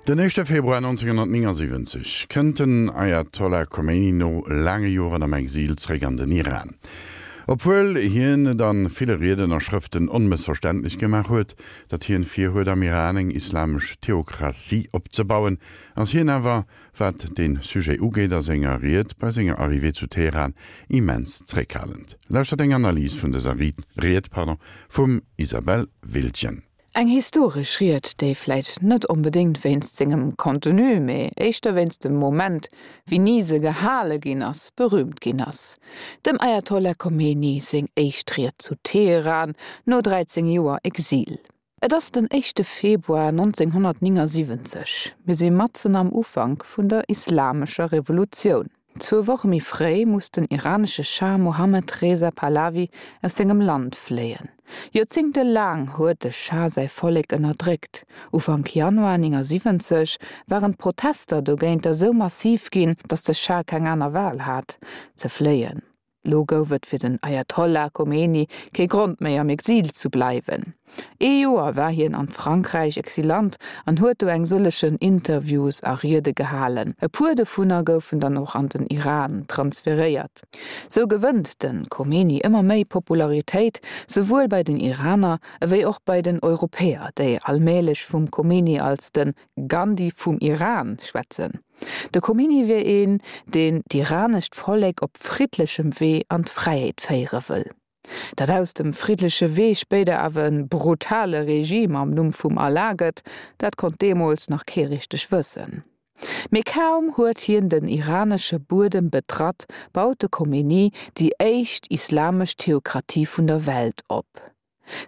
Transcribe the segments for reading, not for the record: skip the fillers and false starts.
Den éischte Februar 1979 kënnt den Ayatollah Khomeini no laange Joren am Exil zréck an den Iran. Obwuel hien et a ville Rieden a Schrëften onmëssverständlech gemaach huet, datt hien virhuet am Iran eng islamesch Theokratie opzebauen, ass hien awer, wat dee Sujet ugeet, a senger Ried bei senger Arrivée zu Teheran immens zréckhalend. Lauschtert eng Analys vun dëser Ried vum Isabelle Wildgen. Eng historesch Ried, déi vläit net onbedéngt wéinst sengem Contenu, mee éischter wéinst dem Moment, wéini se gehale ginn ass, berüümt ginn ass. Dem Ayatollah Khomeini seng éischt Ried zu Teheran no 13 Joer Exil. Et ass den éischte Februar 1979, mir si matzen am Ufank vun der Islamescher Revolutioun. Zwou Woche méi fréi muss den iranesche Schah Mohammed Reza Pahlavi aus sengem Land fléien. Joerzéngte laang huet de Schah säi Vollek ënnerdréckt. Ufank Januar 79 waren d'Protester dogéinter sou massiv ginn, datt de Schah keng aner Wal hat, ze fléien. Lo gouf et fir den Ayatollah Khomeini kee Grond méi am Exil zu bleiwen. Ee Joer war hien an Frankräich Exilant an huet do eng sëllechen Interviews a Riede gehalen. E puer dovunner goufen dann och an den Iran transferéiert. Sou gewënnt de Khomeini ëmmer méi Popularitéit, souwuel bei den Iraner ewéi och bei den Europäer, déi allmählech vum Khomeini als de Gandhi vum Iran schwätzen. De Khomeini wier een, deen d'iranescht Vollek op friddlechem Wee an d'Fräiheet féiere wëll. Datt aus dem friddleche Wee spéider awer e brutale Regime am Numm vum Allah gëtt, dat konnt deemools nach kee richteg wëssen. Mee kaum huet hien den iranesche Buedem betratt, baut de Khomeini déi éischt islamesch Theokratie vun der Welt op.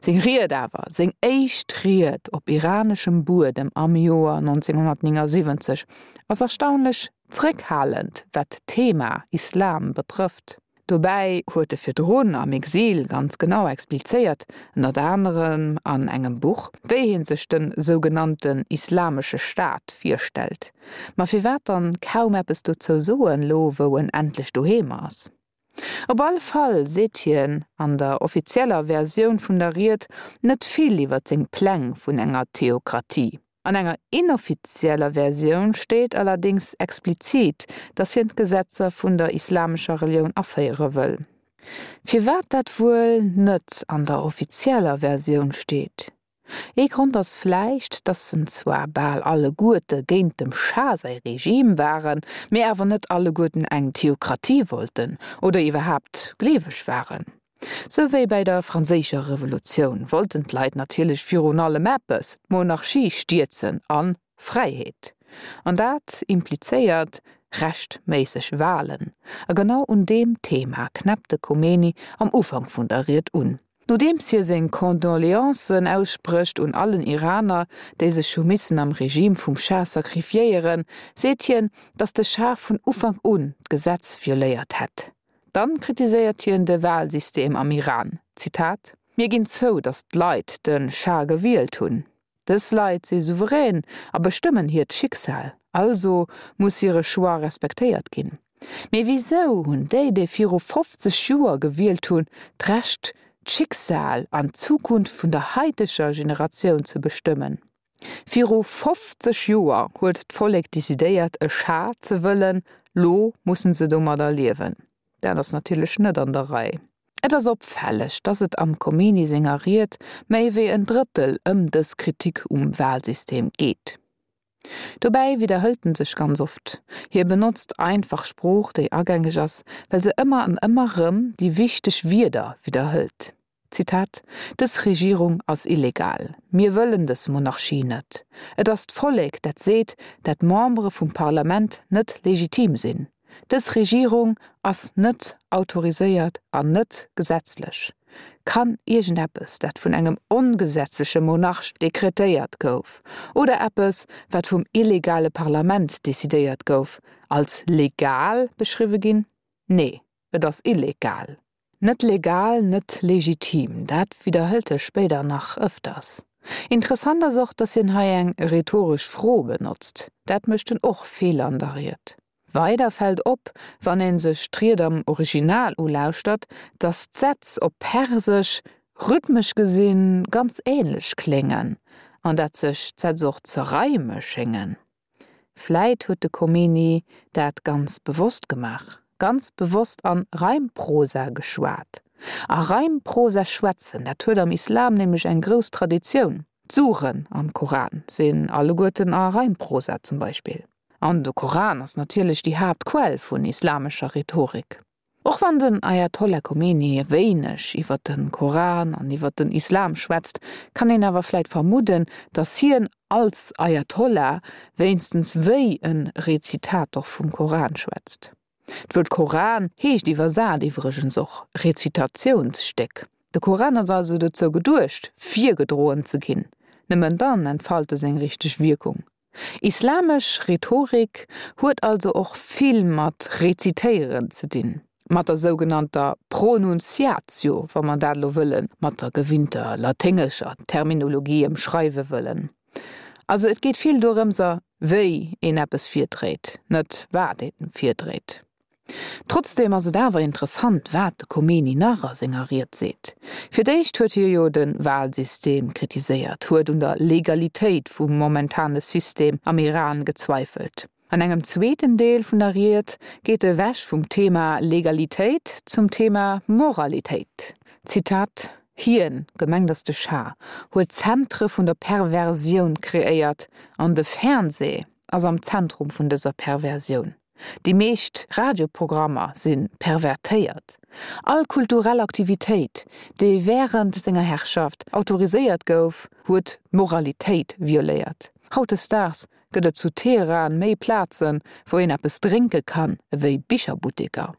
Seng Ried awer, seng éischt Ried op iraneschem Buedem am Joer 1979, ass erstaunlech zréckhalend, wat d'Thema Islam betrëfft. Dobäi huet e virdrun am Exil ganz genau explizéiert, ënnert anerem an engem Buch, wéi hie sech de sougenannten Islamesche Staat virstellt. Ma firwat dann kaum eppes dozou soen, lo wou en endlech doheem ass? Op alle Fall seet hien an der offizieller Versioun vun der Ried net vill iwwer seng Pläng vun enger Theokratie. An enger inoffizieller Versioun steet allerdéngs explizit, datt hien d'Gesetzer vun der islamescher Relioun aféiere wëll. Firwat dat wuel net an der offizieller Versioun steet? Ee Grond ass vläicht, datt se zwar bal alleguerte géint dem Schah säi Regime waren, mee awer net alleguerten eng Theokratie wollten oder iwwerhaapt gleeweg waren. Sou wéi bäi der Franséischer Revolutioun wollten d'Leit natierlech virun allem eppes, d'Monarchie stierzen an Fräiheet. An dat implizéiert rechtméisseg Walen. A genau un deem Thema knäppt de Khomeini am Ufank vun der Ried un. Nodeems hie seng Condoleancen aussprécht un allen Iraner, déi sech hu missen am Regime vum Schah sacrifiéieren, seet hien, datt de Schah vun Ufank un d'Gesetz violéiert hätt. Dann kritiséiert hien de Walsystem am Iran, Zitat, Mir ginn zou, datt d'Leit de Schah gewielt hunn. Dës Leit si souverän a bestëmmen hiert Schicksal, also muss hire Choix respektéiert ginn. Mee wisou hunn déi, déi viru 50 Joer gewielt hunn, d'Recht, d'Schicksal an d'Zukunft vun der haiteger Generatioun ze bestëmmen? Viru 50 Joer huet d'Vollek decidéiert, e Schah ze wëllen, lo mussen se domadder liewen. Dat ass natierlech net an der Rei. Et ass opfälleg, datt et am Khomeini senger Ried méi wéi en Drëttel ëm dës Kritik um Walsystem geet. Dobäi widderhëlt en sech ganz oft. Hie benotzt einfach Sprooch, déi agängeg ass, well se ëmmer an ëmmer rëm déi wichteg Wierder widderhëlt. Zitat, Dës Regierung ass illegal. Mir wëllen dës Monarchie net. Et ass d'Vollek, dat seet, dat d'Membere vum Parlament net legitim sinn. Dës Regierung ass net autoriséiert an net gesetzlech. Kann iergendeppes, dat vun engem ongesetzleche Monarch dekretéiert gouf, oder eppes, wat vum illegale Parlament decidéiert gouf, als legal beschriwwe ginn? Nee, et ass illegal. Net legal, net legitim, dat widderhëlt e spéider nach ëfters. Interessant ass och, datt hien hei eng rhetoresch Fro benotzt. Dat mécht en och vill an der Ried. Weider fält op, wann ee sech d'Ried am Original ulauschtert, datt d'Sätz op Persesch rhythmesch gesinn ganz änlech kléngen. An dat sech d'Sätz och ze reime schéngen. Vläit huet de Khomeini dat ganz bewosst gemaach, ganz bewosst an Reimprosa geschwat. A Reimprosa schwätzen, dat huet am Islam nämlech eng grouss Traditioun. D'Suren am Koran sinn alleguerten a Reimprosa zum Beispill. An de Koran ass natierlech déi Haaptquell vun islamescher Rhetorik. Och wann den Ayatollah Khomeini wéineg iwwer de Koran an iwwer den Islam schwätzt, kann een awer vläit vermudden, datt hien als Ayatollah wéinstens wéi e Rezitator vum Koran schwätzt. D'Wuert Koran heescht iwwersat iwwregens och Rezitatiounsstéck. De Koran ass also dozou geduecht, virgedroen ze ginn. Nëmmen dann entfalt e seng richteg Wierkung. Islamesch Rhetorik huet also och vill mat Rezitéieren ze dinn, mat der sougenannter Pronunciatio, wa mer dat elo wëlle mat der gewinnter laténgescher Terminologie ëmschreiwe wëllen. Also et geet vill dorëmser, wéi een eppes virdréit, net wat ee virdréit. Trotzdeem ass et awer interessant, wat de Khomeini nach a senger Ried seet. Fir d'éischt huet hie jo de Wahlsystem kritiséiert, huet un der Legalitéit vum momentane System am Iran gezweifelt. An engem zweeten Deel vun der Ried geet e ewech vum Thema Legalitéit zum Thema Moralitéit. Zitat, Hien, gemengt ass de Schah, huet Zentre vun der Perversioun kreéiert an de Fernseh ass am Zentrum vun dëser Perversioun. Déi meescht Radioprogrammer si pervertéiert. All kulturell Aktivitéit, déi wärend senger Herrschaft autoriséiert gouf, huet d'Moralitéit violéiert. Hautdesdaags gëtt et zu Teheran méi Plazen, wou een eppes drénke kann, ewéi Bicherbutteker.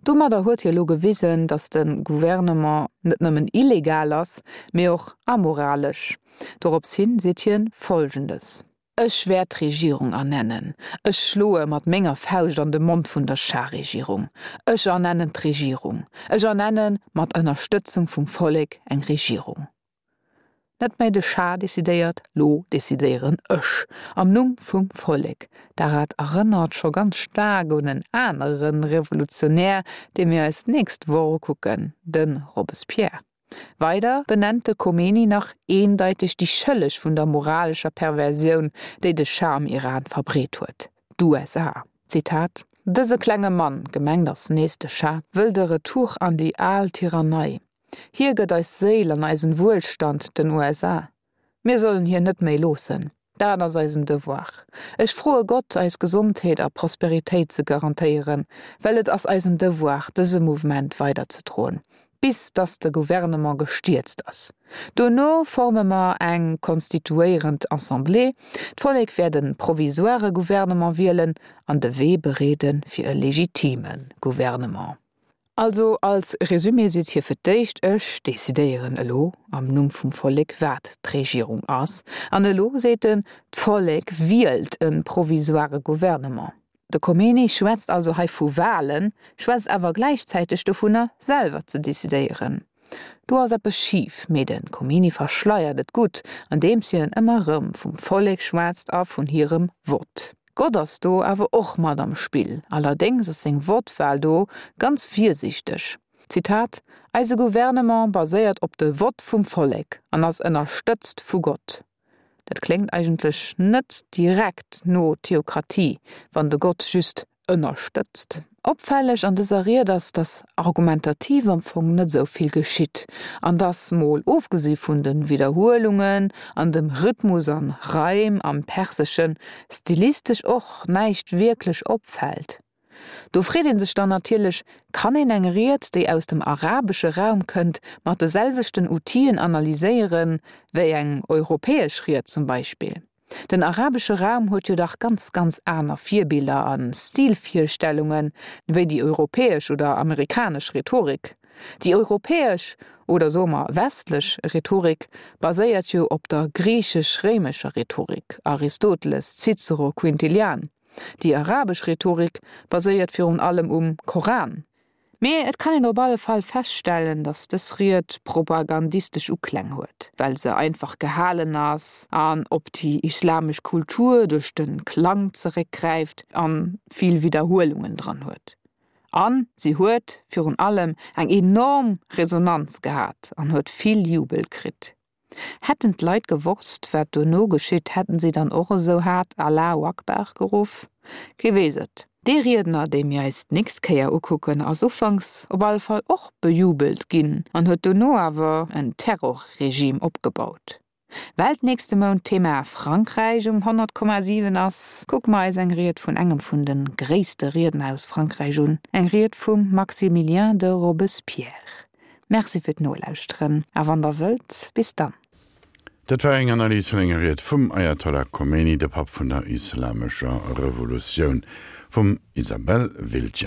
Domadder huet hie lo gewisen, datt de Gouvernement net nëmmen illegal ass, mee och amoralesch. Dorops hin seet hien Folgendes. Ech wäert d'Regierung ernennen. Ech schloe mat menger Fauscht an de Mond vun der Schah-Regierung. Ech ernennen d'Regierung. Ech ernenne mat Ënnerstëtzung vum Vollek eng Regierung. Net méi de Schah decidéiert, lo decidéieren ech am Numm vum Vollek. Darat erënnert scho ganz staark un en anere Revolutionär, dee mir eis d'nächst Woch ukucken, de Robespierre. Weider benennt de Khomeini nach eendeiteg déi Schëlleg vun der moralescher Perversioun, déi de Schah am Iran verbreet huet, d'USA. Zitat, Dëse klenge Mann, gemengt ass nees de Schah, wëll de Retour an déi al Tyrannei. Hie gëtt eis Séil an eisen Wuelstand den USA. Mir sollen hien net méi loossen. Dat ass eisen Devoir. Ech froe Gott, eis Gesondheet a Prosperitéit ze garantéieren, well et ass eisen Devoir, dëse Mouvement weiderzedroen, bis dass de Gouvernement gestierzt ass. Dono forme mer eng konstituéierend Assemblée, d'Vollek wäert e provisoire Gouvernement wielen an de Wee bereede fir e legitime Gouvernement. Also als Resumé seet hie fir d'éischt, ech decidéieren elo am Numm vum Vollek wat d'Regierung ass, an elo seet en, d'Vollek wielt e provisoire Gouvernement. De Khomeini schwätzt also hei vu Wahlen, schwätzt awer gläichzäiteg dovunner selwer ze decidéieren. Do ass eppes schif, mee de Khomeini verschleiert et gutt, andeems hien ëmmer erëm vum Vollek schwätzt a vun hirem Vott. Gott ass do awer och mat am Spill, allerdéngs ass seng Wortwahl do ganz virsiichteg, Zitat, Eise Gouvernement baséiert op de Vott vum Vollek an ass ënnerstëtzt vu Gott. Dat kléngt eigentlech net direkt no Theokratie, wann de Gott just ënnerstëtzt. Opfälleg an dëser Ried ass, dass argumentativ am Fong net esou vill geschitt an dass, mol ofgesi vun de Widderhuelungen an dem Rhythmus an Reim am Perseschen, stilistesch och näischt wierklech opfält. Do freet ee sech dann natierlech, Kann een eng Ried, déi aus dem arabesche Raum kënnt, mat de selwechten Outien analyséieren, wéi eng europäesch Ried zum Beispill? Den arabesche Raum huet jo dach ganz, ganz aner Virbiller a Stilvirstellunge wéi déi europäesch oder amerikanesch Rhetorik. Déi europäesch, oder soe mer westlech, Rhetorik baséiert jo op der griichesch-réimescher Rhetorik, Aristoteles, Cicero, Quintilian. Déi arabesch Rhetorik baséiert virun allem um Koran. Mee et kann een op alle Fall feststellen, datt dës Ried propagandistesch Ukläng huet, well se einfach gehalen ass an op déi islamesch Kultur duerch de Klang zeréckgräift a vill Widderhuelungen dran huet. A si huet virun allem eng enorm Resonanz gehat an huet vill Jubel kritt. Hätten d'Leit gewosst, wat dono geschitt, hätten si dann och esou haart Allahu Akbar geruff? Kee weess et. Dee Riedner, dee mir eis d'nächst Kéier ukucken, ass ufanks op alle Fall och bejubelt ginn an huet dono awer en Terrorregime opgebaut. Well d'nächste Mount d'Thema Frankräich um 100,7 ass, kucke mer eis eng Ried vun engem vun de gréisste Riedner aus Frankräich un, eng Ried vum Maximilien de Robespierre. Merci fir d'Nolauschteren a wann der wëllt, bis dann. Dat war eng Analys vun enger Ried vum Ayatollah Khomeini, de Papp vun der islamescher Revolutioun, vum Isabelle Wiltgen.